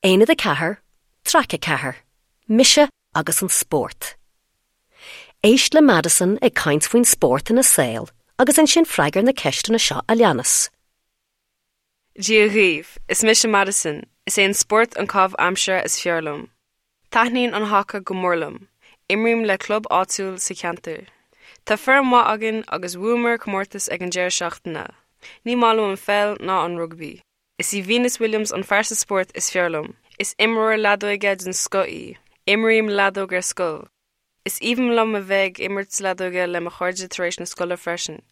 Aonad 4, Traic 4, Mise agus an Spórt. Éist le Madison ag caint faoin spórt ina saol agus ansin freagair na ceisteanna seo a leanas. Dia dhaoibh, is mise Madison, is é an spórt an caitheamh aimsire is fearr liom. Taitníonn an haca go mór liom. Imrím le club áitiúil sa cheantar. Tá foireann mhaith againn agus bhuamar comórtas ag an deireadh seachtaine. Ní maith liom an pheil ná an rugbaí. Is í Venus Williams an phearsa spóirt is fearr liom. Is imreoir leadóige den scoth í. Imrím leadóg ar scoil. Is aoibhinn liom a bheith ag imirt leadóige le mo chairde tar éis na scoile freisin.